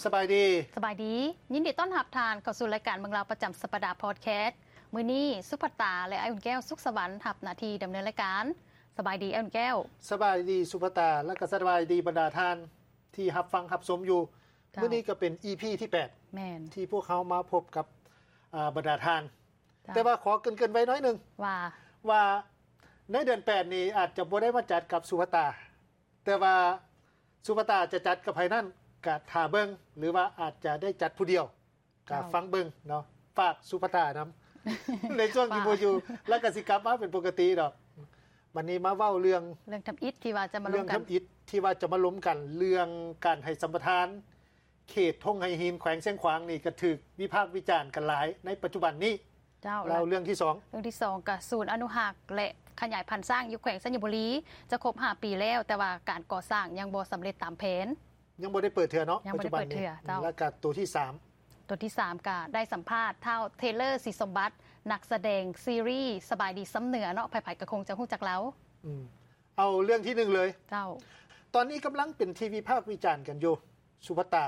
ສະບາຍດີ ສະບາຍດີ ຍິນດີຕ້ອນຮັບທ່ານເຂົ້າສູ່ລາຍການເມືອງລາວປະຈຳສັບປະດາພອດແຄສ. ມື້ນີ້ສຸພັດຕາ ແລະ ອ້າຍອຸ່ນແກ້ວ ສຸກສະຫວັນ ຮັບໜ້າທີ່ດຳເນີນລາຍການ. ສະບາຍດີອ້າຍອຸ່ນແກ້ວ. ສະບາຍດີສຸພັດຕາ ແລະ ກໍສະບາຍດີບັນດາທ່ານທີ່ຮັບຟັງຮັບຊົມຢູ່. ເຈົ້າ ມື້ນີ້ກໍເປັນອີພີທີແປດ ແມ່ນ ທີ່ພວກເຮົາມາພົບກັບ ອາ ບັນດາທ່ານ. ເຈົ້າ ແຕ່ວ່າຂໍເກີ່ນໆໄວ້ໜ້ອຍໜຶ່ງ ວ່າ ວ່າໃນເດືອນແປດນີ້ອາດຈະບໍ່ໄດ້ມາຈັດກັບສຸພັດຕາ ແຕ່ວ່າສຸພັດຕາຈະຈັດກັບໃຜນັ້ນກະຖ້າເບິ່ງ ຫຼືວ່າອາດຈະໄດ້ຈັດຜູ້ດຽວ ກະ ເຈົ້າ ຟັງເບິ່ງເນາະ. ຝາກສຸພັດຕານຳ ໃນຊ່ວງທີ່ບໍ່ຢູ່ ແລ້ວກະຊິກັບມາເປັນປົກກະຕິດອກ. ບັດນີ້ມາເວົ້າເລື່ອງ ເລື່ອງທຳອິດທີ່ວ່າຈະມາລົມກັນ ເລື່ອງທຳອິດທີ່ວ່າຈະມາລົມກັນ ເລື່ອງການໃຫ້ສຳປະທານ ເຂດທົ່ງໄຫຫີນ ແຂວງຊຽງຂວາງນີ້ກໍຖືກວິພາກວິຈານກັນຫຼາຍໃນປັດຈຸບັນນີ້. ເຈົ້າ ແລ້ວເລື່ອງທີສອງ ເລື່ອງທີສອງກໍສູນອະນຸຮັກ ແລະ ຂະຫຍາຍພັນຊ້າງຢູ່ແຂວງໄຊຍະບູລີ ຈະຄົບຫ້າປີແລ້ວ ແຕ່ວ່າການກໍ່ສ້າງຍັງບໍ່ສຳເລັດຕາມແຜນ ຍັງບໍ່ໄດ້ເປີດເທື່ອເນາະ. ຍັງບໍ່ໄດ້ເປີດເທື່ອ ເຈົ້າ. ແລ້ວກໍຕົວທີສາມ ຕົວທີສາມກໍໄດ້ສຳພາດທ້າວ ເທເລີ ສີສົມບັດ ນັກສະແດງຊີຣີສະບາຍດີຊຳເໜືອເນາະ ໃຜໆກໍຄົງຈະຮູ້ຈັກລາວ. ອືມ ເອົາເລື່ອງທີໜຶ່ງເລີຍ ເຈົ້າ. ຕອນນີ້ກຳລັງເປັນທີ່ວິພາກວິຈານກັນຢູ່ ສຸພັດຕາ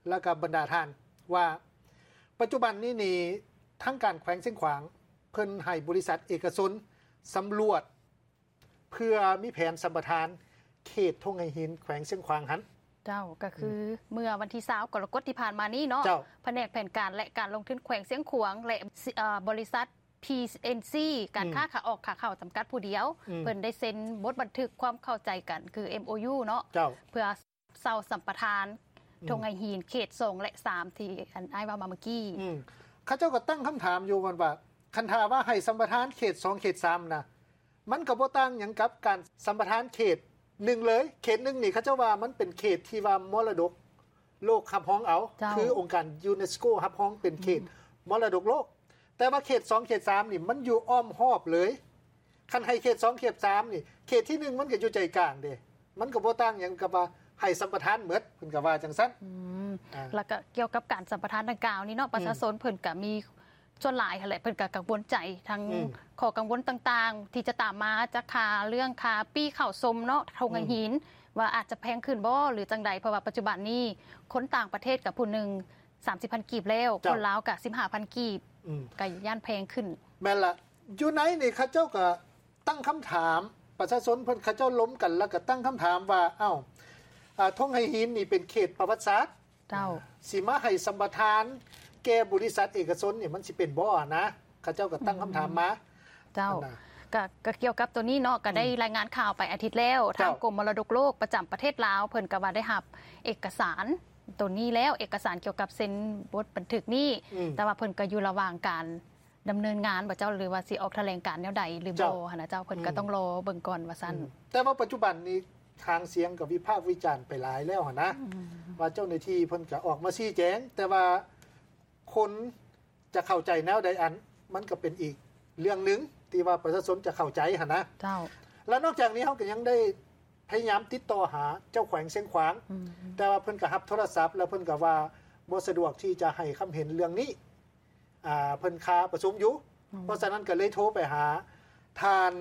ແລ້ວກໍບັນດາທ່ານ ວ່າປັດຈຸບັນນີ້ນີ້ ທາງການແຂວງຊຽງຂວາງ ເພິ່ນໃຫ້ບໍລິສັດເອກະຊົນສຳຫຼວດ ເພື່ອມີແຜນສຳປະທານເຂດທົ່ງໄຫຫີນ ແຂວງຊຽງຂວາງຫັ້ນ. ເຈົ້າ ກໍຄື ອືມ ເມື່ອວັນທີຊາວ ກໍລະກົດທີ່ຜ່ານມານີ້ເນາະ ເຈົ້າ ພະແນກແຜນການ ແລະ ການລົງທຶນແຂວງຊຽງຂວາງ ແລະ ເອີ ບໍລິສັດ ພີເອັນຊີ ການ ອືມ ຄ້າຂາອອກຂາເຂົ້າຈຳກັດຜູ້ດຽວ ອືມ ເພິ່ນໄດ້ເຊັນບົດບັນທຶກຄວາມເຂົ້າໃຈກັນ ຄື ເອັມໂອຢູ ເນາະ ເຈົ້າ ເພື່ອເຊົ່າສຳປະທານ ອືມ ທົ່ງໄຫຫີນເຂດສອງ ແລະ ສາມ ທີ່ອັນອ້າຍເວົ້າມາເມື່ອກີ້. ອືມ ເຂົາເຈົ້າກໍຕັ້ງຄຳຖາມຢູ່ວ່າ ຄັນຖ້າວ່າໃຫ້ສຳປະທານເຂດສອງ ເຂດສາມນະ ມັນກໍບໍ່ຕ່າງຫຍັງກັບການສຳປະທານເຂດໜຶ່ງເລີຍ. ເຂດໜຶ່ງນີ້ ເຂົາເຈົ້າວ່າມັນເປັນເຂດທີ່ວ່າມໍລະດົກໂລກຮັບຮອງເອົາ ເຈົ້າ ຄືອົງການຢູເນສໂກຮັບຮອງເປັນເຂດ ອືມ ມໍລະດົກໂລກ. ແຕ່ວ່າເຂດສອງ ເຂດສາມນີ້ ມັນຢູ່ອ້ອມຮອບເລີຍ. ຄັນໃຫ້ເຂດສອງ ເຂດສາມນີ້ ເຂດທີໜຶ່ງມັນກໍຢູ່ໃຈກາງເດ້ ມັນກໍບໍ່ຕ່າງຫຍັງກັບວ່າໃຫ້ສຳປະທານໝົດ ເພິ່ນກໍວ່າຈັ່ງຊັ້ນ. ອືມ ອ່າ ແລ້ວກໍກ່ຽວກັບການສຳປະທານດັ່ງກ່າວນີ້ເນາະ ອືມ ປະຊາຊົນເພິ່ນກໍມີ ສ່ວນຫຼາຍຫັ້ນແຫຼະ ເພິ່ນກໍກັງວົນໃຈທັງ ອືມ ຂໍ້ກັງວົນຕ່າງໆ ທີ່ຈະຕາມມາຈາກຄ່າເລື່ອງຄ່າປີ້ເຂົ້າຊົມເນາະ ທົ່ງ ອືມ ໄຫຫີນ ວ່າອາດຈະແພງຂຶ້ນບໍ່ ຫຼື ຈັ່ງໃດ ເພາະວ່າປັດຈຸບັນນີ້ຄົນຕ່າງປະເທດກໍຜູ້ໜຶ່ງສາມສິບພັນກີບແລ້ວ ເຈົ້າ ຄົນລາວກໍສິບຫ້າພັນກີບ ອືມ ກໍຢ້ານແພງຂຶ້ນ. ແມ່ນລະ ຢູ່ໃນນີ້ເຂົາເຈົ້າກໍຕັ້ງຄຳຖາມ ປະຊາຊົນເພິ່ນເຂົາເຈົ້າລົມກັນ ແລ້ວກໍຕັ້ງຄຳຖາມວ່າ ເອົ້າ ອາ ທົ່ງໄຫຫີນນີ້ເປັນເຂດປະຫວັດສາດ ເຈົ້າ ຊິມາໃຫ້ສຳປະທານແກ່ບໍລິສັດເອກະຊົນນີ້ ມັນຊິເປັນບໍ່ນະ? ເຂົາເຈົ້າກໍຕັ້ງຄຳຖາມມາ ເຈົ້າ ອັນນະ ກະ ກະກ່ຽວກັບໂຕນີ້ເນາະ ກະໄດ້ ອືມ ລາຍງານຂ່າວໄປອາທິດແລ້ວ ເຈົ້າ ທາງກົມມໍລະດົກໂລກປະຈຳປະເທດລາວ ເພິ່ນກະວ່າໄດ້ຮັບເອກະສານໂຕນີ້ແລ້ວ ເອກະສານກ່ຽວກັບເຊັນບົດບັນທຶກນີ້ ອືມ ແຕ່ວ່າເພິ່ນກະຢູ່ລະຫວ່າງການ ດຳເນີນງານບໍ່ເຈົ້າ ຫຼືວ່າຊິອອກຖະແຫຼງການແນວໃດຫຼືບໍ່ຫັ້ນນະເຈົ້າ ເພິ່ນກໍຕ້ອງລໍເບິ່ງກ່ອນວ່າຊັ້ນ. ອືມ ແຕ່ວ່າປັດຈຸບັນນີ້ຫາງສຽງກໍວິພາກວິຈານໄປຫຼາຍແລ້ວຫັ້ນນະ ອືມ ວ່າເຈົ້າໜ້າທີ່ເພິ່ນກໍອອກມາຊີ້ແຈງ ແຕ່ວ່າຄົນຈະເຂົ້າໃຈແນວໃດ ອັນ ມັນກໍເປັນອີກເລື່ອງໜຶ່ງທີ່ວ່າປະຊາຊົນຈະເຂົ້າໃຈຫັ້ນນະ ເຈົ້າ. ແລະນອກຈາກນີ້ເຮົາກໍຍັງໄດ້ພະຍາຍາມຕິດຕໍ່ຫາເຈົ້າແຂວງຊຽງຂວາງ ອືມ ແຕ່ວ່າເພິ່ນກໍຮັບໂທລະສັບ ແລ້ວເພິ່ນກໍວ່າບໍ່ສະດວກທີ່ຈະໃຫ້ຄຳເຫັນເລື່ອງນີ້ ອ່າ ເພິ່ນຄາປະຊຸມຢູ່ ອືມ ເພາະສະນັ້ນກໍເລີຍໂທໄປຫາທ່ານ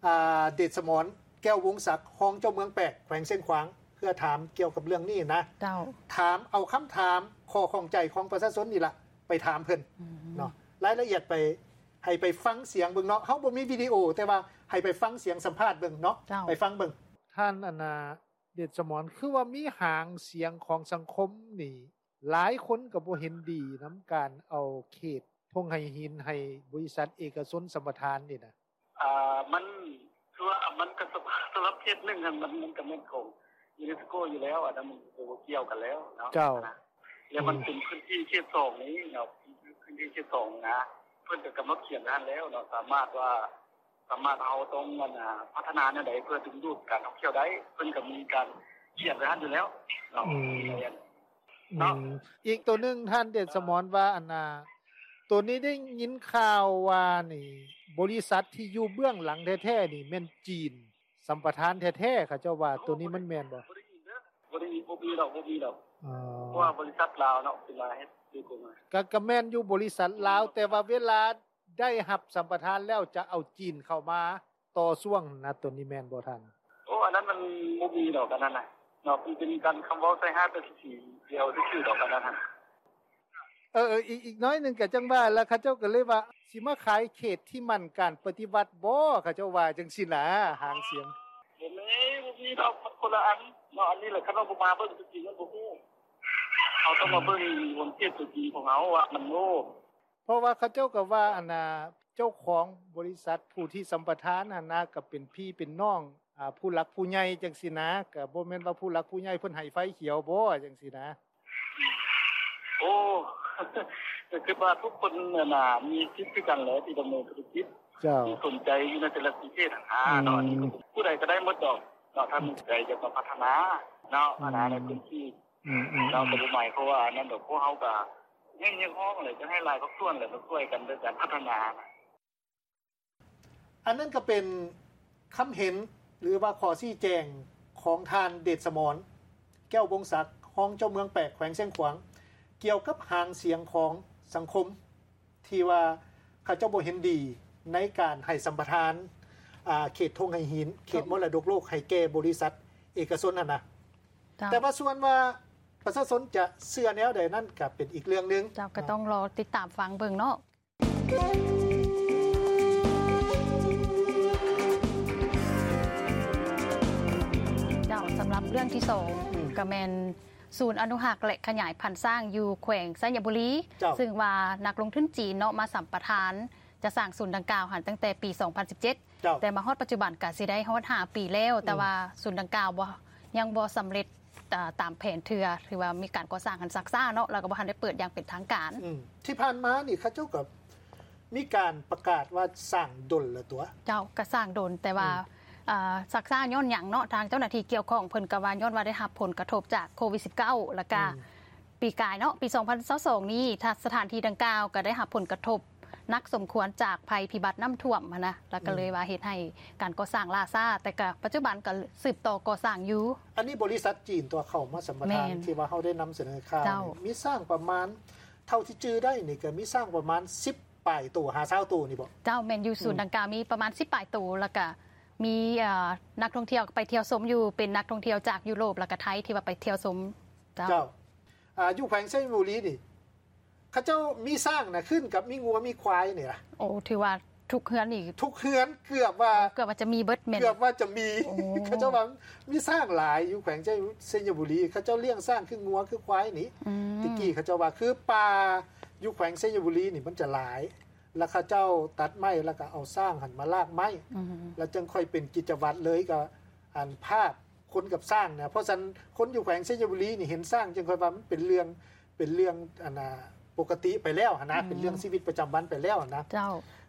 ອ່າ ເດດສະໝອນ ແກ້ວວົງສັກ ຮອງເຈົ້າເມືອງແປກ ແຂວງຊຽງຂວາງ ເພື່ອຖາມກ່ຽວກັບເລື່ອງນີ້ນະ ເຈົ້າ ຖາມເອົາຄຳຖາມຂໍ້ຂ້ອງໃຈຂອງປະຊາຊົນນີ້ລະ ໄປຖາມເພິ່ນ ອືມ ເນາະ ລາຍລະອຽດໄປ ໃຫ້ໄປຟັງສຽງເບິ່ງເນາະ ເຮົາບໍ່ມີວິດີໂອ ແຕ່ວ່າໃຫ້ໄປຟັງສຽງສຳພາດເບິ່ງເນາະ ເຈົ້າ ໄປຟັງເບິ່ງ. ທ່ານ ອັນນາ ເດດສະໝອນ ຄືວ່າມີຫາງສຽງຂອງສັງຄົມນີ້ ຫຼາຍຄົນກໍບໍ່ເຫັນດີນຳການເອົາເຂດທົ່ງໄຫຫີນໃຫ້ບໍລິສັດເອກະຊົນສຳປະທານນີ້ນະ. ອ່າ ມັນ ຄືວ່າມັນກໍສຳ ສຳລັບເຂດໜຶ່ງຫັ້ນ ມັນ ມັນກໍແມ່ນຂອງຢູເນສໂກຢູ່ແລ້ວ ອັນນັ້ນມັນກໍບໍ່ກ່ຽວກັນແລ້ວເນາະ ເຈົ້າ ແລ້ວມັນເປັນພື້ນທີ່ເຂດສອງນີ້ເນາະ ພື້ນທີ່ເຂດສອງນະ ເພິ່ນກໍກຳນົດຂຽນໄວ້ຫັ້ນແລ້ວເນາະ ສາມາດວ່າ ສາມາດ ເຮົາຕ້ອງ ອັນ ພັດທະນາແນວໃດເພື່ອດຶງດູດການທ່ອງທ່ຽວໄດ້ ເພິ່ນກໍມີການຂຽນໄວ້ຫັ້ນຢູ່ແລ້ວເນາະ ອືມ ເນາະ ອືມ ອີກໂຕໜຶ່ງ ທ່ານເດດສະໝອນວ່າ ອັນນ່າ ໂຕນີ້ໄດ້ຍິນຂ່າວວ່ານີ້ ບໍລິສັດທີ່ຢູ່ເບື້ອງຫຼັງແທ້ໆນີ້ແມ່ນຈີນສຳປະທານແທ້ໆ ເຂົາເຈົ້າວ່າ ໂຕນີ້ມັນແມ່ນບໍ່? ບໍ່ໄດ້ຍິນເດີ ບໍ່ໄດ້ ບໍ່ມີດອກ ບໍ່ມີດອກ ເພາະວ່າບໍລິສັດລາວເນາະ ເປັນລາວເຮັດໂດຍກົງ ກະ ກະແມ່ນຢູ່ບໍລິສັດລາວ ແຕ່ວ່າເວລາ ໄດ້ຮັບສຳປະທານແລ້ວຈະເອົາຈີນເຂົ້າມາຕໍ່ຊ່ວງນະ ໂຕນີ້ແມ່ນບໍ່ທ່ານ? ໂອ້ ອັນນັ້ນມັນບໍ່ມີດອກ ອັນນັ້ນນະເນາະ ມັນເປັນການຄຳເວົ້າໃສ່ຮ້າຍປ້າຍສີ ດຽວຊື່ໆດອກອັນນັ້ນຫັ້ນ. ເອີໆ ອີກ ອີກໜ້ອຍໜຶ່ງກໍຈັ່ງວ່າລະ ເຂົາເຈົ້າກໍເລີຍວ່າ ຊິມາຂາຍເຂດທີ່ໝັ້ນການປະຕິວັດບໍ ເຂົາເຈົ້າວ່າຈັ່ງຊີ້ນະ ຫາງສຽງ. ບໍ່ມີ ບໍ່ມີດອກ ມັນຄົນລະອັນເນາະ. ອັນນີ້ແຫຼະ ຄັນວ່າບໍ່ມາເບິ່ງຕົວຈິງມັນບໍ່ຮູ້. ເຮົາຕ້ອງມາເບິ່ງ ອືມ ບົນເຂດຕົວຈິງຂອງເຮົາວ່າມັນໂອ້ ເພາະວ່າເຂົາເຈົ້າກໍວ່າ ອັນນ່າ ເຈົ້າຂອງບໍລິສັດຜູ້ທີ່ສຳປະທານຫັ້ນນະ ກໍເປັນພີ່ເປັນນ້ອງ ອ່າ ຜູ້ຫຼັກຜູ້ໃຫຍ່ຈັ່ງຊີ້ນະ ກໍບໍ່ແມ່ນວ່າຜູ້ຫຼັກຜູ້ໃຫຍ່ເພິ່ນໃຫ້ໄຟຂຽວບໍ ຈັ່ງຊີ້ນະ. ໂອ້ ກໍຄິດວ່າທຸກຄົນຫັ້ນນະ ມີສິດຄືກັນແຫຼະທີ່ດຳເນີນທຸລະກິດ ເຈົ້າ ທີ່ສົນໃຈຢູ່ໃນແຕ່ລະປະເທດຫັ້ນນະ ອືມ ເນາະ. ອັນນີ້ຜູ້ໃດກໍໄດ້ໝົດດອກເນາະ ຖ້າມີໃຈຢາກມາພັດທະນາເນາະ ອືມ ອັນນັ້ນໃນພື້ນທີ່ ອືມໆໆ ເນາະ. ກໍບໍ່ໝາຍຄວາມວ່າອັນນັ້ນດອກ ພວກເຮົາກໍຮຽກຮ້ອງແຫຼະ ຈະໃຫ້ຫຼາຍພາກສ່ວນແຫຼະ ມາຊ່ວຍກັນໃນການພັດທະນາ. ອັນນັ້ນກໍເປັນຄຳເຫັນ ຫຼືວ່າຂໍ້ຊີ້ແຈງຂອງທ່ານ ເດດສະໝອນ ແກ້ວວົງສັກ ຮອງເຈົ້າເມືອງແປກ ແຂວງຊຽງຂວາງ ກ່ຽວກັບຫາງສຽງຂອງສັງຄົມ ທີ່ວ່າເຂົາເຈົ້າບໍ່ເຫັນດີໃນການໃຫ້ສຳປະທານ ອ່າ ເຂດທົ່ງໄຫຫີນ ເຂດມໍລະດົກໂລກ ໃຫ້ແກ່ບໍລິສັດເອກະຊົນຫັ້ນນະ. ເຈົ້າ. ແຕ່ວ່າສ່ວນວ່າປະຊາຊົນຈະເຊື່ອແນວໃດນັ້ນ ກໍເປັນອີກເລື່ອງໜຶ່ງ. ເຈົ້າ ກໍຕ້ອງລໍຕິດຕາມຟັງເບິ່ງເນາະ. ເຈົ້າ ສຳລັບເລື່ອງທີສອງ ອືມ ກໍແມ່ນສູນອະນຸຮັກ ແລະ ຂະຫຍາຍພັນຊ້າງຢູ່ແຂວງໄຊຍະບູລີ ເຈົ້າ ຊຶ່ງວ່ານັກລົງທຶນຈີນເນາະ ມາສຳປະທານຈະສ້າງສູນດັ່ງກ່າວຫັ້ນຕັ້ງແຕ່ປີສອງພັນສິບເຈັດ ເຈົ້າ ແຕ່ມາຮອດປັດຈຸບັນກໍຊິໄດ້ຮອດຫ້າປີແລ້ວ ອືມ ແຕ່ວ່າສູນດັ່ງກ່າວບໍ່ ຍັງບໍ່ສຳເລັດ ອ່າ ຕາມແຜນເທື່ອ ຖືວ່າມີການກໍ່ສ້າງຫັ້ນຊັກຊ້າເນາະ ແລ້ວກໍບໍ່ທັນໄດ້ເປີດຢ່າງເປັນທາງການ. ອືມ ທີ່ຜ່ານມານີ້ເຂົາເຈົ້າກໍມີການປະກາດວ່າສ້າງດົນແລ້ວຕົວະ. ເຈົ້າ ກໍສ້າງດົນ ແຕ່ວ່າ ອືມ ອ່າ ຊັກຊ້າຍ້ອນຫຍັງເນາະ? ທາງເຈົ້າໜ້າທີ່ກ່ຽວຂ້ອງເພິ່ນກໍວ່າຍ້ອນວ່າໄດ້ຮັບຜົນກະທົບຈາກໂຄວິດສິບເກົ້າ ແລ້ວກໍ ອືມ ປີກາຍເນາະ ປີສອງພັນຊາວສອງນີ້ ສະຖານທີ່ດັ່ງກ່າວກໍໄດ້ຮັບຜົນກະທົບ ໜັກສົມຄວນຈາກໄພພິບັດນ້ຳຖ້ວມຫັ້ນນະ ແລ້ວກໍເລີຍ ອືມ ວ່າເຮັດໃຫ້ການກໍ່ສ້າງລ່າຊ້າ ແຕ່ກໍປັດຈຸບັນກໍສືບຕໍ່ກໍ່ສ້າງຢູ່. ອັນນີ້ບໍລິສັດຈີນຕົວະເຂົ້າມາສຳປະທານ ແມ່ນ ທີ່ວ່າເຮົາໄດ້ນຳສະເໜີຂ່າວ ເຈົ້າ ນີ້ ມີຊ້າງປະມານ ເທົ່າທີ່ຈື່ໄດ້ນີ້ ກໍມີຊ້າງປະມານສິບປາຍໂຕ ຫາຊາວໂຕນີ້ບໍ? ເຈົ້າ ແມ່ນຢູ່ ອືມ ສູນດັ່ງກ່າວມີປະມານສິບປາຍໂຕ ແລ້ວກໍມີ ເອີ ນັກທ່ອງທ່ຽວໄປທ່ຽວຊົມຢູ່ ເປັນນັກທ່ອງທ່ຽວຈາກຢູໂຣບ ແລ້ວກໍໄທ ທີ່ວ່າໄປທ່ຽວຊົມ. ເຈົ້າ ເຈົ້າ ອ່າ ຢູ່ແຂວງໄຊຍະບູລີນີ້ ເຂົາເຈົ້າມີຊ້າງນະ ຄືນກັບມີງົວມີຄວາຍນີ້ລະ. ໂອ້ ຖືວ່າທຸກເຮືອນນີ້ ທຸກເຮືອນເກືອບວ່າ ເກືອບວ່າຈະມີເບິດແມ່ນ ເກືອບວ່າຈະມີ. ໂອ້ ເຂົາເຈົ້າວ່າມີຊ້າງຫຼາຍຢູ່ແຂວງໄຊຍະບູລີ ເຂົາເຈົ້າລ້ຽງຊ້າງຄືງົວຄືຄວາຍນີ້. ອືມ ແຕ່ກີ້ເຂົາເຈົ້າວ່າຄືປ່າຢູ່ແຂວງໄຊຍະບູລີນີ້ມັນຈະຫຼາຍ ແລ້ວເຂົາເຈົ້າຕັດໄມ້ ແລ້ວກໍເອົາຊ້າງຫັ້ນມາລາກໄມ້ ອືມ ແລ້ວຈຶ່ງຄ່ອຍເປັນກິດຈະວັດເລີຍ ກໍອັນພາບ ຄົນກັບຊ້າງນະ ເພາະສະນັ້ນຄົນຢູ່ແຂວງໄຊຍະບູລີນີ້ເຫັນຊ້າງຈຶ່ງຄ່ອຍວ່າມັນເປັນເລື່ອງ ເປັນເລື່ອງອັນນ່າ ປົກກະຕິໄປແລ້ວຫັ້ນນະ ອືມ ເປັນເລື່ອງຊີວິດປະຈຳວັນໄປແລ້ວຫັ້ນນະ. ເຈົ້າ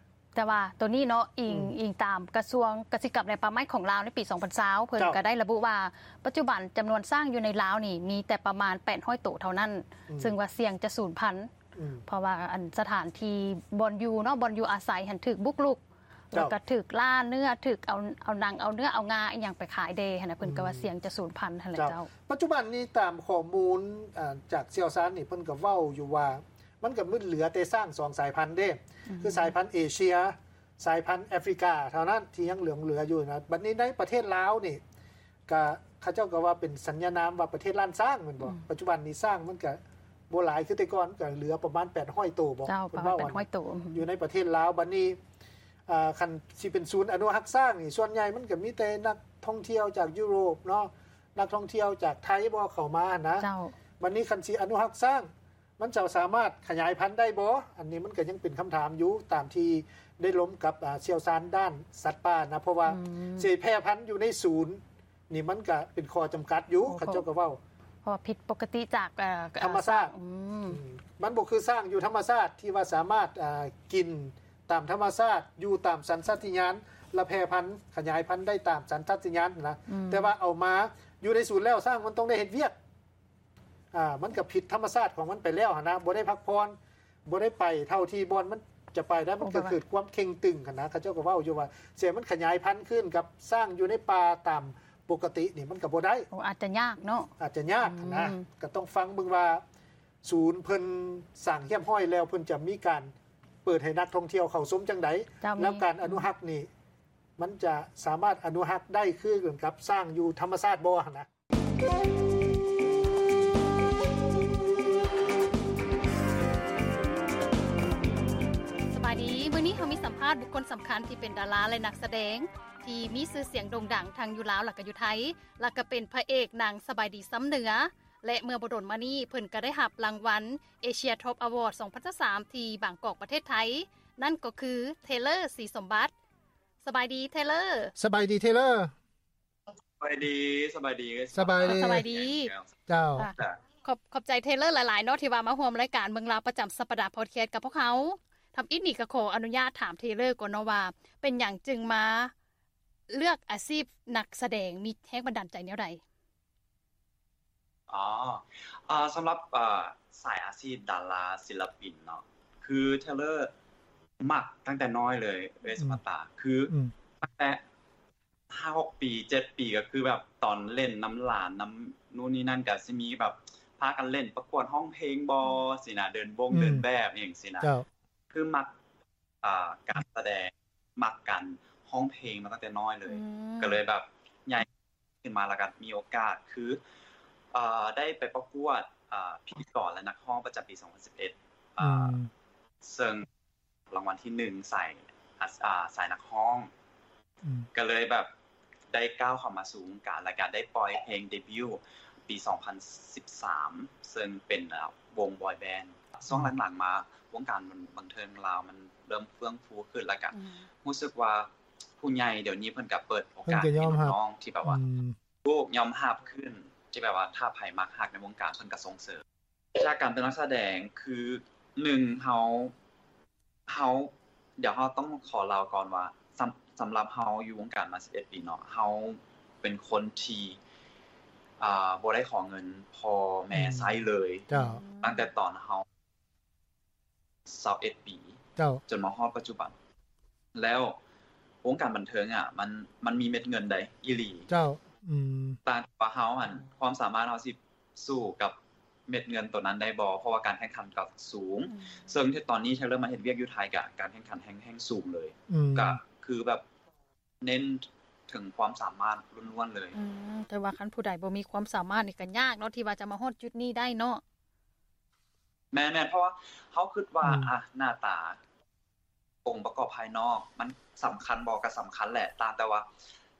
ແຕ່ວ່າໂຕນີ້ເນາະ ອີງ ອືມ ອີງຕາມກະຊວງກະສິກຳ ແລະ ປ່າໄມ້ຂອງລາວ ໃນປີສອງພັນຊາວ ເພິ່ນ ເຈົ້າ ກໍໄດ້ລະບຸວ່າ ປັດຈຸບັນຈຳນວນຊ້າງຢູ່ໃນລາວນີ້ມີແຕ່ປະມານແປດຮ້ອຍໂຕເທົ່ານັ້ນ ອືມ ຊຶ່ງວ່າສ່ຽງຈະສູນພັນ ອືມ ເພາະວ່າອັນສະຖານທີ່ບ່ອນຢູ່ເນາະ ບ່ອນຢູ່ອາໄສຫັ້ນຖືກບຸກລຸກ ເຈົ້າ ແລ້ວກໍຖືກລ່າເນື້ອ ຖືກເອົາ ເອົາໜັງ ເອົາເນື້ອ ເອົາງາອີ່ຫຍັງໄປຂາຍແດ່ຫັ້ນນະ ເພິ່ນກໍວ່າ ອືມ ສ່ຽງຈະສູນພັນຫັ້ນແຫຼະ. ເຈົ້າ ເຈົ້າ ປັດຈຸບັນນີ້ຕາມຂໍ້ມູນ ອ່າ ຈາກຊ່ຽວຊານນີ້ ເພິ່ນກໍເວົ້າຢູ່ວ່າ ມັນກໍມີເຫຼືອແຕ່ຊ້າງສອງສາຍພັນເດ້ ອືມ ຄືສາຍພັນເອເຊຍ ສາຍພັນແອຟຣິກາເທົ່ານັ້ນທີ່ຍັງຫຼົງເຫຼືອຢູ່ນະ. ບັດນີ້ໃນປະເທດລາວນີ້ ກະເຂົາເຈົ້າກໍວ່າເປັນສັນຍານາມວ່າປະເທດລ້ານຊ້າງແມ່ນບໍ່? ອືມ ປັດຈຸບັນນີ້ຊ້າງມັນກະບໍ່ຫຼາຍຄືແຕ່ກ່ອນ ກະເຫຼືອປະມານແປດຮ້ອຍໂຕບໍ? ເຈົ້າ ເພິ່ນເວົ້າ ປະມານແປດຮ້ອຍໂຕ ອືມ ຢູ່ໃນປະເທດລາວ. ບັດນີ້ ອ່າ ຄັນຊິເປັນສູນອະນຸຮັກຊ້າງນີ້ ສ່ວນໃຫຍ່ມັນກະມີແຕ່ນັກທ່ອງທ່ຽວຈາກຢູໂຣບເນາະ ນັກທ່ອງທ່ຽວຈາກໄທບໍ ເຂົ້າມາຫັ້ນນະ. ເຈົ້າ ບັດນີ້ຄັນຊິອະນຸຮັກຊ້າງ ມັນຈະສາມາດຂະຫຍາຍພັນໄດ້ບໍ່? ອັນນີ້ມັນກໍຍັງເປັນຄຳຖາມຢູ່ ຕາມທີ່ໄດ້ລົມກັບ ອ່າ ຊ່ຽວຊານດ້ານສັດປ່ານະ ເພາະວ່າ ອືມ ຊິແຜ່ພັນຢູ່ໃນສູນນີ້ ມັນກໍເປັນຂໍ້ຈຳກັດຢູ່ ໂອ້ ເຂົາເຈົ້າກໍເວົ້າ ເພາະວ່າຜິດປົກກະຕິຈາກ ເອີ ທຳມະຊາດ ອືມ ອືມ ມັນບໍ່ຄືຊ້າງຢູ່ທຳມະຊາດທີ່ວ່າສາມາດ ອ່າ ກິນຕາມທຳມະຊາດ ຢູ່ຕາມສັນຊາດຕະຍານ ແລະ ແຜ່ພັນຂະຫຍາຍພັນໄດ້ຕາມສັນຊາດຕະຍານນະ ອືມ ແຕ່ວ່າເອົາມາຢູ່ໃນສູນແລ້ວ ຊ້າງມັນຕ້ອງໄດ້ເຮັດວຽກ ອ່າ ມັນກໍຜິດທຳມະຊາດຂອງມັນໄປແລ້ວຫັ້ນນະ ບໍ່ໄດ້ພັກຜ່ອນ ບໍ່ໄດ້ໄປເທົ່າທີ່ບ່ອນມັນຈະໄປໄດ້ ມັນກໍເກີດຄວາມເຄັ່ງຕຶງຫັ້ນນະ. ເຂົາເຈົ້າກໍເວົ້າຢູ່ວ່າ ເສຍມັນຂະຫຍາຍພັນຄືນກັບຊ້າງຢູ່ໃນປ່າຕາມປົກກະຕິນີ້ ມັນກໍບໍ່ໄດ້. ໂອ້ ອາດຈະຍາກເນາະ ອາດຈະຍາກຫັ້ນນະ ອືມ ກໍຕ້ອງຟັງເບິ່ງວ່າ ສູນເພິ່ນສ້າງຮຽບຮ້ອຍແລ້ວ ເພິ່ນຈະມີການເປີດໃຫ້ນັກທ່ອງທ່ຽວເຂົ້າຊົມຈັ່ງໃດ ເຈົ້າ ແລ້ວການອະນຸຮັກນີ້ ມັນຈະສາມາດອະນຸຮັກໄດ້ຄືກັນກັບຊ້າງຢູ່ທຳມະຊາດບໍ່ຫັ້ນນະ. າດບຸກຄົນສຳຄັນທີ່ເປັນດາລາ ແລະ ນັກສະແດງ ທີ່ມີຊື່ສຽງໂດ່ງດັງທັງຢູ່ລາວ ແລະ ກໍຢູ່ໄທ ແລະ ກໍເປັນພະເອກໜັງສະບາຍດີຊຳເໜືອ ແລະ ເມື່ອບໍ່ດົນມານີ້ ເພິ່ນກໍໄດ້ຮັບລາງວັນ Asia Top Award ສອງພັນຊາວສາມ ທີ່ບາງກອກ ປະເທດໄທ ນັ້ນກໍຄື ເທເລີ ສີສົມບັດ. ສະບາຍດີ ເທເລີ. ສະບາຍດີ ເທເລີ. ສະບາຍດີ ສະບາຍດີ ສະບາຍດີ ສະບາຍດີ ເຈົ້າ. ຂອບ ຂອບໃຈເທເລີຫຼາຍໆເນາະ ທີ່ວ່າມາຮ່ວມລາຍການເມືອງລາວປະຈຳສັບປະດາພອດແຄສກັບພວກເຮົາ. ທຳອິດນີ້ກໍຂໍອະນຸຍາດຖາມເທເລີກ່ອນເນາະວ່າ ເປັນຫຍັງຈຶ່ງມາເລືອກອາຊີບນັກສະແດງ? ມີແຮງບັນດານໃຈແນວໃດ? ອໍ ເອີ ສຳລັບ ເອີ ສາຍອາຊີບດາລາ ສິນລະປິນເນາະ ຄືເທເລີມັກຕັ້ງແຕ່ນ້ອຍເລີຍ ເອື້ອຍສະມາຕາ ອືມ ຄື ອືມ ຕັ້ງແຕ່ ຫ້າຫົກປີ ເຈັດປີ ກໍຄືແບບຕອນເຫຼັ້ນນຳຫຼານ ນຳນູ່ນນີ້ນັ້ນ ກໍຊິມີແບບພາກັນເຫຼັ້ນປະກວດຮ້ອງເພງບໍ ອືມ ຊີ້ນະ ເດີນວົງ ອືມ ເດີນແບບຫຍັງຊີ້ນະ ເຈົ້າ ຄືມັກ ອ່າ ການສະແດງ ມັກການຮ້ອງເພງມາຕັ້ງແຕ່ນ້ອຍເລີຍ ອືມ ກໍເລີຍແບບໃຫຍ່ຂຶ້ນມາ ແລ້ວກໍມີໂອກາດ ຄື ເອີ ໄດ້ໄປປະກວດ ເອີ ພິທີກອນ ແລະ ນັກຮ້ອງປະຈຳປີສອງພັນສິບເອັດ ອືມ ເຊິ່ງ ລາງວັນທີໜຶ່ງ ສາຍ ອາ ສາຍນັກຮ້ອງ ອືມ ກໍເລີຍແບບໄດ້ກ້າວເຂົ້າມາສູ່ວົງການ ແລ້ວກໍໄດ້ປ່ອຍເພງເດບິວ ປີສອງພັນສິບສາມ ເຊິ່ງເປັນ ເອີ ວົງບອຍແບນ. ອືມ ຊ່ວງຫຼັງໆມາ ວົງການບັນເທີງລາວມັນເລີ່ມເຟື່ອງຟູຂຶ້ນ ແລ້ວກໍ ອືມ ຮູ້ສຶກວ່າຜູ້ໃຫຍ່ດຽວນີ້ເພິ່ນກໍເປີດໂອກາດໃຫ້ນ້ອງໆທີ່ແບບວ່າ ອືມ ຖືກຍອມຮັບຂຶ້ນ ທີ່ແບບວ່າຖ້າໃຜມັກຮັກໃນວົງການ ເພິ່ນກໍສົ່ງເສີມ. ຈາກການເປັນນັກສະແດງ ຄື ໜຶ່ງ ເຮົາ ເຮົາ ດຽວເຮົາຕ້ອງຂໍເລົ່າກ່ອນວ່າ ສຳ ສຳລັບເຮົາຢູ່ວົງການມາສິບເອັດປີເນາະ ເຮົາເປັນຄົນທີ່ ອ່າ ບໍ່ໄດ້ຂໍເງິນພໍ່ແມ່ ອືມ ໃຊ້ເລີຍ ເຈົ້າ ຕັ້ງແຕ່ຕອນເຮົາ ຊາວເອັດປີ ເຈົ້າ ຈົນມາຮອດປັດຈຸບັນ ແລ້ວວົງການບັນເທີງອະ ມັນ ມັນມີເມັດເງິນໃດ ອີ່ຫຼີ ເຈົ້າ ອືມ ຕ່າງວ່າເຮົາຫັ້ນ ຄວາມສາມາດເຮົາຊິ ສູ້ກັບເມັດເງິນໂຕນັ້ນໄດ້ບໍ່ ເພາະວ່າການແຂ່ງຂັນກໍສູງ ອືມ ເຊິ່ງທີ່ຕອນນີ້ເທເລີມາເຮັດວຽກຢູ່ໄທ ກະການແຂ່ງຂັນແຮ່ງ ແຮ່ງສູງເລີຍ ອືມ ກະຄືແບບເນັ້ນເຖິງຄວາມສາມາດລ້ວນໆເລີຍ ອືມ ແຕ່ວ່າຄັນຜູ້ໃດບໍ່ມີຄວາມສາມາດນີ້ກໍຍາກເນາະ ທີ່ວ່າຈະມາຮອດຈຸດນີ້ໄດ້ເນາະ. ແມ່ນໆ ເພາະວ່າເຮົາຄິດວ່າ ອືມ ອະ ໜ້າຕາ ອົງປະກອບພາຍນອກມັນສຳຄັນບໍ່? ກໍສຳຄັນແຫຼະ ຕ່າງແຕ່ວ່າ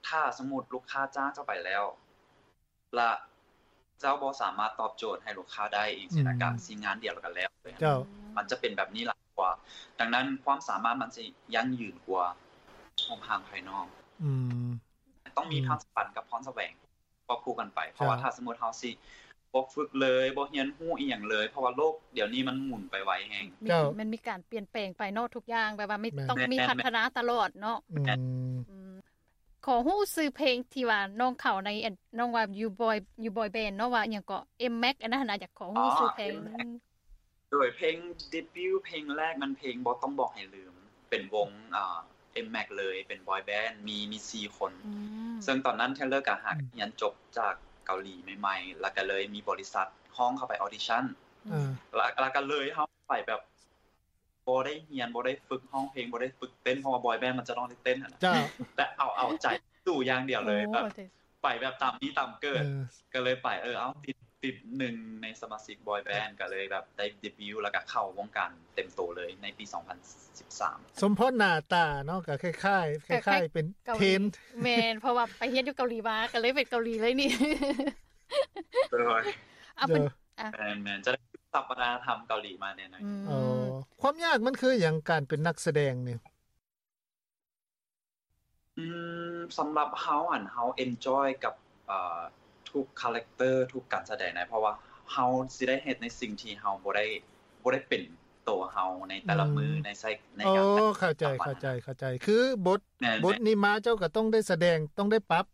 ຖ້າສົມມຸດລູກຄ້າຈ້າງເຈົ້າໄປແລ້ວ ລະເຈົ້າບໍ່ສາມາດຕອບໂຈດໃຫ້ລູກຄ້າໄດ້ອີກຊີ້ນະ ອືມ ກະຊິງານດຽວລະກະແລ້ວເລີຍ ເຈົ້າ ມັນຈະເປັນແບບນີ້ຫຼາຍກວ່າ. ດັ່ງນັ້ນຄວາມສາມາດມັນຊິຢັ້ງຢືນກວ່າຮູບຮ່າງພາຍນອກ ອືມ ຕ້ອງມີ ອືມ ພານສະຫວັນກັບພອນສະແຫວງຄວບຄູ່ກັນໄປ ເພາະວ່າ ເຈົ້າ ຖ້າສົມມຸດເຮົາຊິບໍ່ຝຶກເລີຍ ບໍ່ຮຽນຮູ້ອີ່ຫຍັງເລີຍ ເພາະວ່າໂລກດຽວນີ້ມັນໝູນໄປໄວແຮງ ເຈົ້າ ມັນມີການປ່ຽນແປງໄປເນາະ ທຸກຢ່າງແບບວ່າມີ ແມ່ນ ຕ້ອງມີ ແມ່ນ ພັດທະນາຕະຫຼອດເນາະ ອືມ ອືມ ຂໍຮູ້ຊື່ເພງທີ່ວ່ານ້ອງເຂົ້າໃນ ອັນ ນ້ອງວ່າຢູ່ບອຍ ຢູ່ບອຍແບນເນາະ ວ່າອີ່ຫຍັງເກາະ ເອັມແມັກ ອັນນັ້ນຫັ້ນນະ ຢາກຂໍຮູ້ ອໍ ຊື່ເພງ ເອັມແມັກ ໂດຍເພງເດບິວເພງແລກແມ່ນເພງບໍ່ຕ້ອງບອກໃຫ້ລືມ ເປັນວົງ ເອີ ເອັມແມັກເລີຍ ເປັນບອຍແບນ ມີ ມີສີ່ຄົນ ອືມ ເຊິ່ງຕອນນັ້ນເທເລີກະຫາກ ອືມ ຮຽນຈົບຈາກເກົາຫຼີໃໝ່ໆ ແລ້ວກະເລີຍມີບໍລິສັດຮ້ອງເຂົ້າໄປອອດິຊັນ ອືມ ແລ້ວ ແລ້ວກະເລີຍເຮົາໄປແບບ ບໍ່ໄດ້ຮຽນ ບໍ່ໄດ້ຝຶກຮ້ອງເພງ ບໍ່ໄດ້ຝຶກເຕັ້ນ ເພາະວ່າບອຍແບນມັນຈະຕ້ອງໄດ້ເຕັ້ນຫັ້ນນະ ເຈົ້າ ແຕ່ເອົາ ເອົາໃຈສູ້ຢ່າງດຽວເລີຍ ໂອ້ ແບບ ໂອເຄ ໄປແບບຕາມມີຕາມເກີດ ເອີ ກໍເລີຍໄປ ເອີ ເອົາ ຕິດ ຕິດໜຶ່ງໃນສະມາຊິກບອຍແບນ ກໍເລີຍແບບໄດ້ເດບິວ ແລ້ວກໍເຂົ້າວົງການເຕັມໂຕເລີຍໃນປີສອງພັນສິບສາມ ສົມພໍ້ໜ້າຕາເນາະ ກໍຄ້າຍໆ ຄ້າຍໆ ເປັນເກາຫຼີ ເທນ ແມ່ນ ເພາະວ່າໄປຮຽນຢູ່ເກົາຫຼີມາ ກໍເລີຍເປັນເກົາຫຼີເລີຍນີ້ ໂດຍ ເອົາເປັນ ໂດຍ ອາ ແມ່ນໆ ຈະໄດ້ ສັບວັດທະນະທຳເກົາຫຼີມາແນ່ນອນ ອືມ ອໍ ຄວາມຍາກມັນຄືຫຍັງ ການເປັນນັກສະແດງນີ້? ອືມ ສຳລັບເຮົາຫັ້ນ ເຮົາເອັນຈອຍກັບ ເອີ ທຸກຄາແຣັກເຕີ ທຸກການສະແດງນະ ເພາະວ່າເຮົາຊິໄດ້ເຮັດໃນສິ່ງທີ່ເຮົາບໍ່ໄດ້ ບໍ່ໄດ້ເປັນໂຕເຮົາໃນແຕ່ລະມື້ ອືມ ໃນໃຊ້ ໃນ ໂອ້ ການ ເຂົ້າໃຈ ເຂົ້າໃຈ ເຂົ້າໃຈ ຄືບົດ ແມ່ນໆ ບົດນີ້ມາເຈົ້າກໍຕ້ອງໄດ້ສະແດງ ຕ້ອງໄດ້ປັບ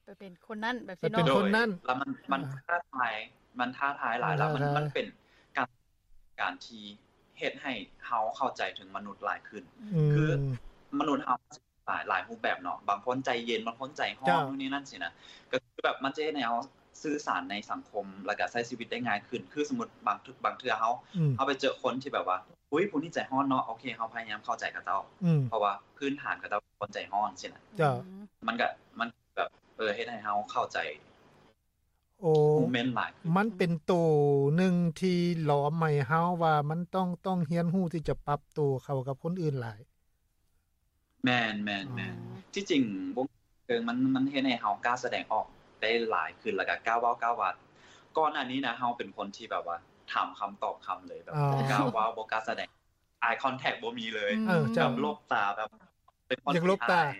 ໄປເປັນຄົນນັ້ນແບບຊີ້ເນາະ ໄປເປັນຄົນນັ້ນ ແລ້ວມັນ ມັນ ອ່າ ທ້າທາຍ ມັນທ້າທາຍຫຼາຍ ແລ້ວມັນ ທ້າທາຍ ມັນເປັນການ ການທີ່ເຮັດໃຫ້ເຮົາເຂົ້າໃຈເຖິງມະນຸດຫຼາຍຂຶ້ນ ອືມ ຄືມະນຸດເຮົາຫຼາຍ ຫຼາຍຮູບແບບເນາະ ບາງຄົນໃຈເຢັນ ບາງຄົນໃຈຮ້ອນ ເຈົ້າ ໂນ່ນນີ້ນັ້ນຊີ້ນະ ກໍຄືແບບມັນຈະເຮັດໃຫ້ເຮົາສື່ສານໃນສັງຄົມ ແລ້ວກໍໃຊ້ຊີວິດໄດ້ງ່າຍຂຶ້ນ ຄືສົມມຸດບາງ ບາງເທື່ອເຮົາ ອືມ ເຮົາໄປເຈີຄົນທີ່ແບບວ່າ ອຸ້ຍ ຜູ້ນີ້ໃຈຮ້ອນເນາະ ໂອເຄ ເຮົາພະຍາຍາມເຂົ້າໃຈເຂົາເຈົ້າ ອືມ ເພາະວ່າພື້ນຖານເຂົາເຈົ້າເປັນຄົນໃຈຮ້ອນຊີ້ນະ ເຈົ້າ ອືມ ມັນກໍ ມັນ ແບບ ເອີ ເຮັດໃຫ້ເຮົາເຂົ້າໃຈ ໂອ້ ໂມເມັນຫຼາຍຂຶ້ນ ມັນເປັນໂຕໜຶ່ງທີ່ຫຼອມໃຫ້ເຮົາວ່າມັນຕ້ອງ ຕ້ອງຮຽນຮູ້ທີ່ຈະປັບໂຕເຂົ້າກັບຄົນອື່ນຫຼາຍ ແມ່ນໆໆ ທີ່ຈິງວົງເທີງມັນ ມັນເຮັດໃຫ້ເຮົາກ້າສະແດງອອກໄດ້ຫຼາຍຂຶ້ນ ແລ້ວກໍກ້າເວົ້າກ້າວ່າ. ກ່ອນໜ້ານີ້ນະ ເຮົາເປັນຄົນທີ່ແບບວ່າຖາມຄຳຕອບຄຳເລີຍ ແບບບໍ່ກ້າເວົ້າ ບໍ່ກ້າສະແດງ eye contact ບໍ່ມີເລີຍ ແບບຫຼົບຕາ ແບບເປັນຄົນທີ່ອາຍ.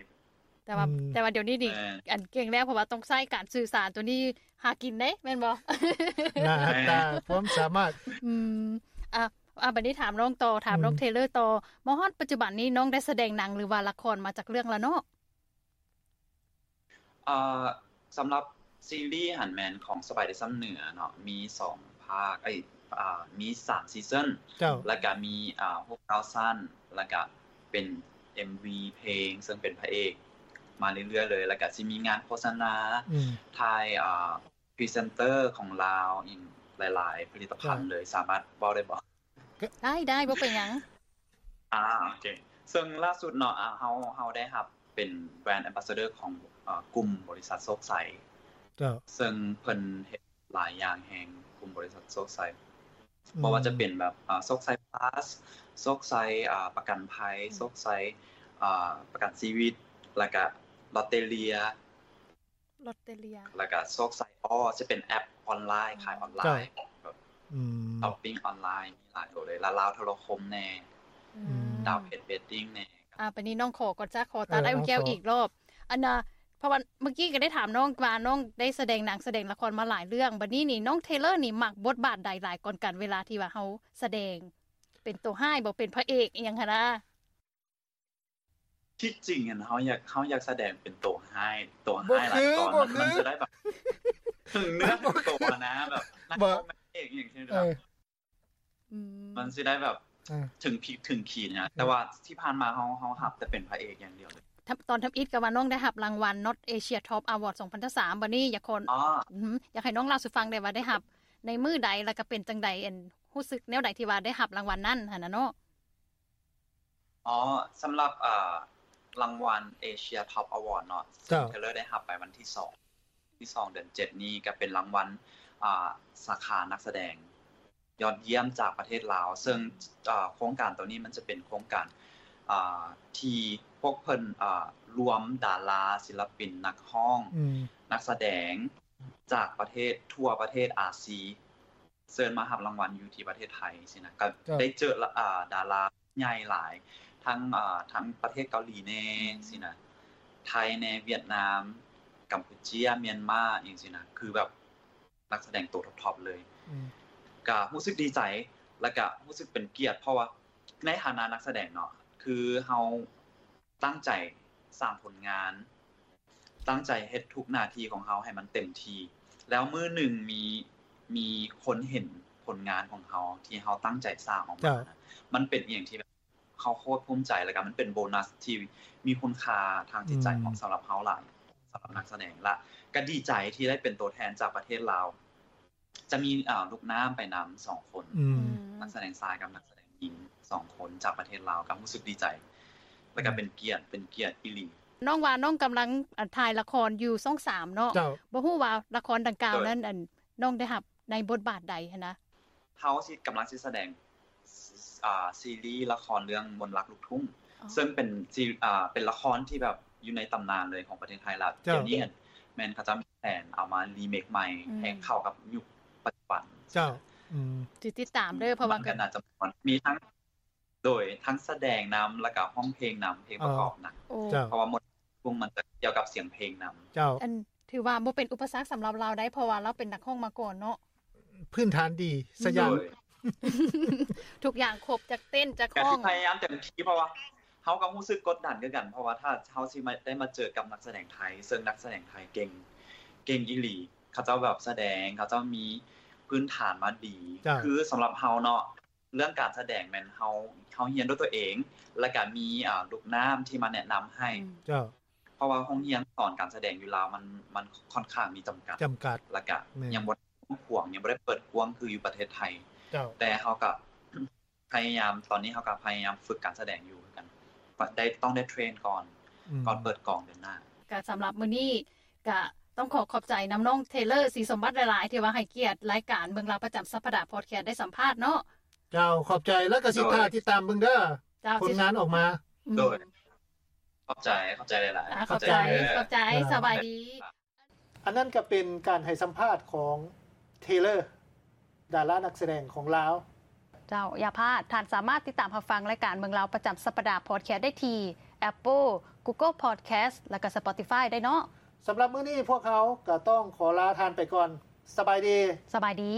ແຕ່ວ່າ ແຕ່ວ່າດຽວນີ້ນີ້ ອັນເກັ່ງແລ້ວ ເພາະວ່າຕ້ອງໃຊ້ການສື່ສານ ໂຕນີ້ຫາກິນເດ້ ແມ່ນບໍ່? ໜ້າຕາ ຄວາມສາມາດ. ອືມ ອ່າ ອ່າ ບັດນີ້ຖາມນ້ອງຕໍ່ ຖາມນ້ອງເທເລີຕໍ່ ມາຮອດປັດຈຸບັນນີ້ ນ້ອງໄດ້ສະແດງໜັງ ຫຼືວ່າລະຄອນມາຈັກເລື່ອງແລ້ວເນາະ? ເອີ່ ສຳລັບຊີຣີຫັ້ນແມ່ນຂອງສະບາຍດີຊຳເໜືອເນາະ ມີສອງພາກ ເອີຍ ອ່າ ມີສາມຊີຊັນ ແລ້ວກະມີ ອ່າ ຫົກເກົ້າຊັ້ນ ແລ້ວກະເປັນເອັມວີເພງ ເຊິ່ງເປັນພະເອກມາເລື້ອຍໆເລີຍ ແລ້ວກະຊິມີງານໂຄສະນາ ຖ່າຍ ອ່າ ພຣີເຊັນເຕີຂອງລາວ ອີກຫຼາຍໆຜະລິດຕະພັນເລີຍ. ສາມາດເວົ້າໄດ້ບໍ່? ໄດ້ໆ ບໍ່ເປັນຫຍັງ. ອ່າ ໂອເຄ ເຊິ່ງລ່າສຸດເນາະ ອ່າ ເຮົາ ເຮົາໄດ້ຮັບເປັນ brand ambassador ຂອງ ເອີ່ ກຸ່ມບໍລິສັດໂຊກໄຊ ເຊິ່ງເພິ່ນເຮັດຫຼາຍຢ່າງແຮງ ກຸ່ມບໍລິສັດໂຊກໄຊ ບໍ່ວ່າຈະເປັນແບບ ອ່າ ໂຊກໄຊພລັສ ໂຊກໄຊ ອ່າ ປະກັນໄພ ໂຊກໄຊ ອ່າ ປະກັນຊີວິດ ແລ້ວກະລອດເຕເລຍ ລອດເຕເລຍ ແລ້ວກະໂຊກໄຊອໍ ຈະເປັນແອັບອອນລາຍ ຂາຍອອນລາຍ ແບບ ອືມ ຊັອບປິງອອນລາຍ ມີຫຼາຍໂຕເລີຍ ລາວໂທລະຄົມແດ່ ອືມ ດາວເພັດເວດດິ້ງແດ່. ອ່າ ບາດນີ້ນ້ອງຂໍກ່ອນ ຈະຂໍຕັດອ້າຍອຸ່ນແກ້ວອີກລອບ ອັນນ່າ ເພາະວ່າເມື່ອກີ້ກໍໄດ້ຖາມນ້ອງວ່າ ນ້ອງໄດ້ສະແດງໜັງສະແດງລະຄອນມາຫຼາຍເລື່ອງ ບາດນີ້ນີ້ ນ້ອງເທເລີນີ້ມັກບົດບາດໃດຫຼາຍກ່ອນກັນ ເວລາທີ່ວ່າເຮົາສະແດງ ເປັນໂຕຮ້າຍບໍ່ ເປັນພະເອກອີ່ຫຍັງຫັ້ນນະ? ທີ່ຈິງຫັ້ນ ເຮົາຢາກ ເຮົາຢາກສະແດງເປັນໂຕຮ້າຍ ໂຕຮ້າຍຫຼາຍກ່ອນ ມັນ ມັນຈະໄດ້ແບບເຖິງເນື້ອເຖິງໂຕນະ ແບບນັກແສດງອີ່ຫຍັງຊີ້ນະ ມັນຊິໄດ້ແບບເຖິງພິກເຖິງຂີນນະ ແຕ່ວ່າທີ່ຜ່ານມາເຮົາ ເຮົາຮັບແຕ່ເປັນພະເອກຢ່າງດຽວເລີຍ. ຕອນທຳອິດກໍວ່ານ້ອງໄດ້ຮັບລາງວັນ Not Asia Top Award ສອງພັນຊາວສາມ ບາດນີ້ຢາກຂໍ ອືມ ຢາກໃຫ້ນ້ອງເລົ່າສູ່ຟັງໄດ້ວ່າໄດ້ຮັບໃນມື້ໃດ ແລ້ວກໍເປັນຈັ່ງໃດ ອັນ ຮູ້ສຶກແນວໃດທີ່ວ່າໄດ້ຮັບລາງວັນນັ້ນຫັ້ນນະເນາະ? ອໍ ສຳລັບ ເອີ່ ລາງວັນ Asia Top Award ເນາະ ເຊິ່ງເທເລີໄດ້ຮັບໄປວັນທີສອງ ທີສອງ ເດືອນເຈັດນີ້ ກໍເປັນລາງວັນ ອ່າ ສາຂານັກສະແດງຍອດຢ້ຽມຈາກປະເທດລາວ ເຊິ່ງ ເອີ່ ໂຄງການໂຕນີ້ມັນຈະເປັນໂຄງການ ອ່າ ທີ່ພວກເພິ່ນ ອ່າ ລວມດາລາ ສິນລະປິນ ນັກຮ້ອງ ນັກສະແດງຈາກປະເທດ ທົ່ວປະເທດອາຊີ ເຊີນມາຮັບລາງວັນຢູ່ທີ່ປະເທດໄທຊີ້ນະ ກໍໄດ້ເຈີ ອ່າ ດາລາໃຫຍ່ຫຼາຍ ທັງ ອ່າ ທັງປະເທດເກົາຫຼີແດ່ຊີ້ນະ ໄທແດ່ ຫວຽດນາມ ກຳປູເຈຍ ມຽນມາ ອີ່ຫຍັງຊີ້ນະ ຄືແບບນັກສະແດງໂຕທັອບໆເລີຍ ກໍຮູ້ສຶກດີໃຈ ແລ້ວກໍຮູ້ສຶກເປັນກຽດ ເພາະວ່າໃນຖານະນັກສະແດງເນາະ ຄືເຮົາຕັ້ງໃຈສ້າງຜົນງານ ຕັ້ງໃຈເຮັດທຸກໜ້າທີ່ຂອງເຮົາໃຫ້ມັນເຕັມທີ່ ແລ້ວມື້ໜຶ່ງມີ ມີຄົນເຫັນຜົນງານຂອງເຮົາທີ່ເຮົາຕັ້ງໃຈສ້າງອອກມານະ ມັນເປັນອີ່ຫຍັງທີ່ແບບເຮົາໂຄດພູມໃຈ ແລ້ວກໍມັນເປັນໂບນັສທີ່ມີຄຸນຄ່າທາງຈິດໃຈຂອງ ສຳລັບເຮົາຫຼາຍ ສຳລັບນັກສະແດງ ແລະ ກໍດີໃຈທີ່ໄດ້ເປັນໂຕແທນຈາກປະເທດລາວ ຈະມີ ອ່າ ລູກນ້ຳໄປນຳສອງຄົນ ອືມ ນັກສະແດງຊາຍກັບນັກສະແດງຍິງສອງຄົນຈາກປະເທດລາວ ກໍຮູ້ສຶກດີໃຈ ແລ້ວກໍເປັນກຽດ ເປັນກຽດອີ່ຫຼີ. ນ້ອງວ່ານ້ອງກຳລັງ ອ່າ ຖ່າຍລະຄອນຢູ່ຊ່ອງສາມເນາະ ບໍ່ຮູ້ວ່າລະຄອນດັ່ງກ່າວນັ້ນ ອັນ ນ້ອງໄດ້ຮັບໃນບົດບາດໃດຫັ້ນນະ? ເຮົາຊິ ກຳລັງຊິສະແດງ ອ່າ ຊີຣີລະຄອນເລື່ອງມົນລັກລູກທຸ່ງ ເຊິ່ງເປັນຊີ ອ່າ ເປັນລະຄອນທີ່ແບບຢູ່ໃນຕຳນານເລີຍຂອງປະເທດໄທ ແລ້ວດຽວນີ້ແມ່ນເຂົາເຈົ້າມີແຜນເອົາມາຣີເມກໃໝ່ ໃຫ້ເຂົ້າກັບຍຸກປັດຈຸບັນ. ເຈົ້າ ອືມ ຊິຕິດຕາມເດີ ເພາະວ່າກໍໜ້າຈະມ່ວນ ມີທັງ ໂດຍ ທັງສະແດງນຳ ແລ້ວກໍຮ້ອງເພງນຳ ເພງປະກອບນຳ ເພາະວ່າມົນ ພວກມັນຈະກ່ຽວກັບສຽງເພງນຳ. ເຈົ້າ ອັນ ຖືວ່າບໍ່ເປັນອຸປະສັກສຳລັບລາວໄດ໋ ເພາະວ່າລາວເປັນນັກຮ້ອງມາກ່ອນເນາະ ພື້ນຖານດີຊະຢ່າງ ທຸກຢ່າງຄົບ ຈັກເຕັ້ນຈັກຮ້ອງ ກໍພະຍາຍາມເຕັມທີ່ ເພາະວ່າເຮົາກໍຮູ້ສຶກກົດດັນຄືກັນ ເພາະວ່າຖ້າເຮົາຊິມາ ໄດ້ມາເຈີກັບນັກສະແດງໄທ ເຊິ່ງນັກສະແດງໄທເກັ່ງ ເກັ່ງອີ່ຫຼີ ເຂົາເຈົ້າແບບສະແດງ ເຂົາເຈົ້າມີພື້ນຖານມາດີ ຄືສຳລັບເຮົາເນາະ ເລື່ອງການສະແດງແມ່ນເຮົາ ເຮົາຮຽນດ້ວຍຕົວເອງ ແລ້ວກະມີ ອ່າ ລູກນ້ຳທີ່ມາແນະນຳໃຫ້ ເຈົ້າ ເພາະວ່າໂຮງຮຽນສອນການສະແດງຢູ່ລາວມັນ ມັນຄ່ອນຂ້າງມີຈຳກັດ ຈຳກັດ ແລ້ວກະຍັງບໍ່ໄດ້ກວ້າງຂວາງ ຍັງບໍ່ໄດ້ເປີດກວ້າງຄືຢູ່ປະເທດໄທ ເຈົ້າ ແຕ່ເຮົາກະພະຍາຍາມ ຕອນນີ້ເຮົາກະພະຍາຍາມຝຶກການສະແດງຢູ່ຄືກັນ ໄດ້ ຕ້ອງໄດ້ເທຣນກ່ອນ ອືມ ກ່ອນເປີດກອງເດືອນໜ້າ. ກະສຳລັບມື້ນີ້ ກະຕ້ອງຂໍຂອບໃຈນຳນ້ອງເທເລີ ສີສົມບັດ ຫຼາຍໆ ທີ່ວ່າໃຫ້ກຽດລາຍການເມືອງລາວປະຈຳສັບປະດາພອດແຄສໄດ້ສຳພາດເນາະ. ເຈົ້າ ຂອບໃຈ ແລ້ວກໍຊິຖ້າຕິດຕາມເບິ່ງເດີ ເຈົ້າ ຜົນງານອອກມາ. ໂດຍ ຂອບໃຈ ຂອບໃຈຫຼາຍໆ ອ່າ ຂອບໃຈ ຂອບໃຈ ຂອບໃຈ ສະບາຍດີ. ອັນນັ້ນກໍເປັນການໃຫ້ສຳພາດຂອງ Taylor ດາລານັກສະແດງຂອງລາວ. ເຈົ້າ ຢ່າພາດ, ທ່ານສາມາດຕິດຕາມຮັບຟັງລາຍການເມືອງລາວປະຈຳສັບປະດາ Podcast ໄດ້ທີ່ Apple, Google Podcast ແລະກໍ Spotify ໄດ້ເນາະ. ສຳລັບມື້ນີ້ ພວກເຮົາກໍຕ້ອງຂໍລາທ່ານໄປກ່ອນ. ສະບາຍດີ. ສະບາຍດີ.